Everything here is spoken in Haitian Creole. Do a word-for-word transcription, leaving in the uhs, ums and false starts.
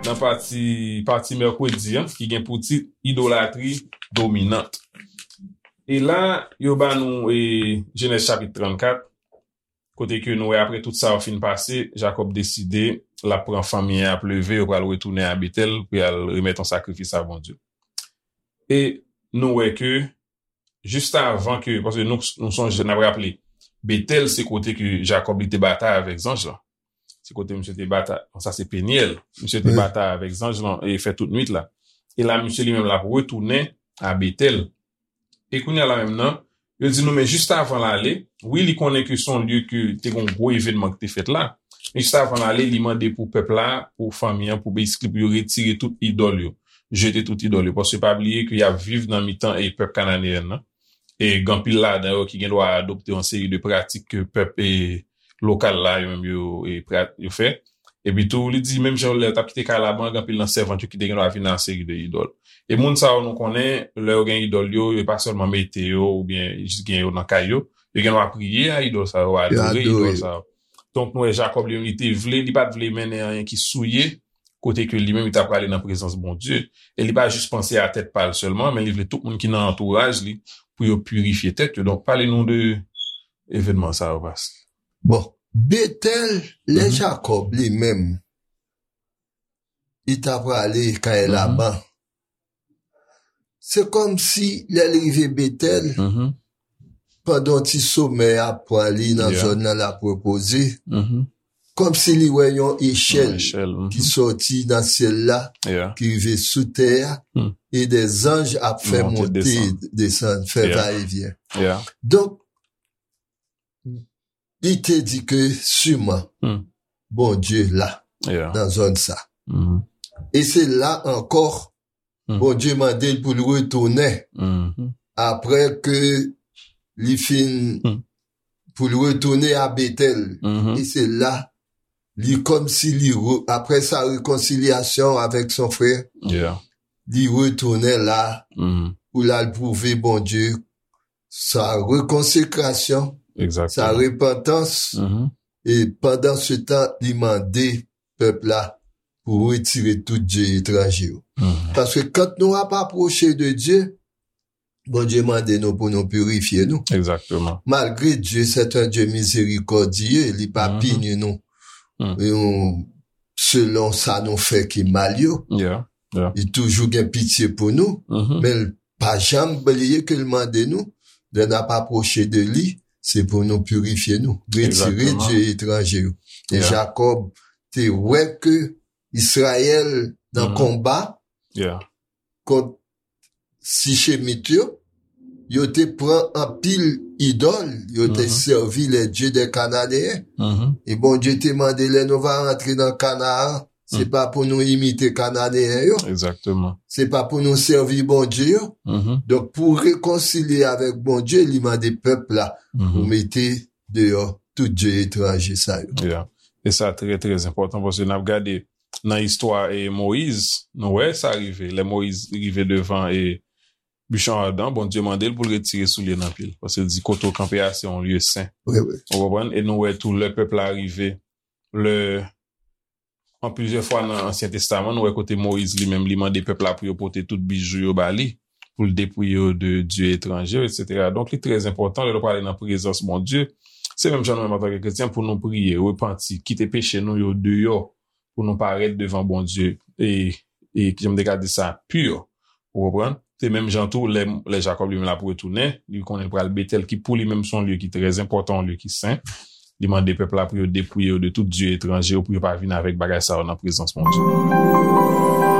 Nan pati, pati mèkredi an, ki gen pou tit Idolatri dominant. E la, yo ba nou e, Jenèz chapit trannkat, kote ke nou wè apre tout sa yo fin pase, Jakòb deside l ap pran fanmi an, y ap leve, yo pral retounen a Betèl pou y al remèt yon sakrifis a Bondye. E nou wè ke, jis avan ke, paske nou, nou sonje, n ap raple, Betèl se kote ke Jakòb li te batay avèk zanj lan. Se kote misye te batay, bon, sa se Penyèl. Misye te batay avèk zanj lan e fè tout nwit la. E la, misye li menm l ap retounen a Betèl. E kounye a la menm nan, yo di nou, men jis avan l ale, wi, li konnen ke se yon lye ke te gen yon gwo evènman ki te fèt la. Men jis avan l ale, li mande pou pèp la, pou fanmi an, pou beysikli, pou yo retire tout idòl yo. Jete tout idòl yo. Paske pa bliye ke y ap viv nan mitan e pèp kananeyen nan. E gen anpil ladan yo ki gen dwa adopte yon seri de pratik ke pèp e lokal la, yo menm yo, e, pra-, yo fè. Epi tou, li di, menm jan lè yo t ap kite kay Laban, gen anpil nan sèvant yo ki te gen dwa vin ak seri de idòl. E moun sa yo nou konnen, lè yo gen idòl yo, yo pa sèlman mete yo oubyen jis gen yo nan kay yo, yo gen dwa priye a idòl sa yo, adore idòl sa yo. Donk, nou wè Jakòb li menm, li te vle, li pa t vle mennen anyen ki souye, kote ke li menm, li ta prale nan prezans Bondye. E li pa jis panse a tèt pa l sèlman, men li vle tout moun ki nan antouraj li pou yo pirifye tèt yo. Donk, pale nou de evènman sa yo, Pas. Bon, Betèl, lè Jakòb li menm, li ta prale kay Laban, se kòmsi lè l rive Betèl, pandan yon ti somèy ap pran li nan zòn nan l ap repoze, kòmsi li wè yon echèl ki sòti nan syèl la, ki rive sou tè a, e de zanj ap fè monte, desann, fè vayevyen. Donk, li te di ke siman Bondye la nan zòn sa. E se la ankò Bondye mande l pou l retounen apre ke li fin, pou l retounen a Betèl. E se la, li kòmsi li re-, apre sa rekonsilyasyon avèk son frè, li retounen la pou l al pwouve Bondye sa rekonsekrasyon, sa repantans. E pandan se tan, li mande pèp la pou retire tout dye etranje yo. Paske kan nou ap apwoche de Dye, Bondye mande nou pou nou pirifye nou. Malgre Dye se yon Dye mizerikòdye, li pa pini nou, nou, selon sa nou fè ki mal yo. Li toujou gen pitye pou nou, men l pa janm bliye ke l mande nou, lè n ap apwoche de li, se pou nou pirifye nou, retire dye etranje yo. E Jakòb te wè ke Izrayèl nan konba kont Sichemit yo, yo te pran anpil idòl, yo te sèvi les dieux des Cananéens. E Bondye te mande lè nou va rantre nan Kanaan, se pa pou nou imite Kananeyen yo. Se pa pou nou sèvi Bondye yo. Donk, pou rekonsilye avèk Bondye, li mande pèp la pou mete deyò tout dye etranje sa yo. E sa trè, trè enpòtan, paske n ap gade nan istwa e Moyiz, nou wè sa rive. Lè Moyiz rive devan e bichon adan, Bondye mande l pou l retire soulye nan pye l. Paske l di, kote w kanpe a, se yon lye sen. Ou konprann? E nou wè tou, lè pèp la rive, lè, an plizyè fwa nan Ansyen Testaman, nou wè kote Moyiz li menm, li mande pèp la pou yo pote tout bijou yo ba li, pou l depouye yo de dye etranje yo, etsetera. Donk, li trè enpòtan, lè nou prale nan prezans Bondye, se menm jan nou menm antanke kretyen, pou nou priye, repanti, kite peche nou yo deyò, pou nou parèt devan Bondye e, e kijan m te ka di sa, pi. Ou konprann? Se menm jan tou, lè, lè Jakòb li menm l ap retounen, li konnen l pral Betèl, ki pou li menm se yon lye ki trè enpòtan, yon lye ki sen. Li mande pèp la pou yo depouye yo de tout dye etranje yo, pou yo pa vin avèk bagay sa yo nan prezans Bondye.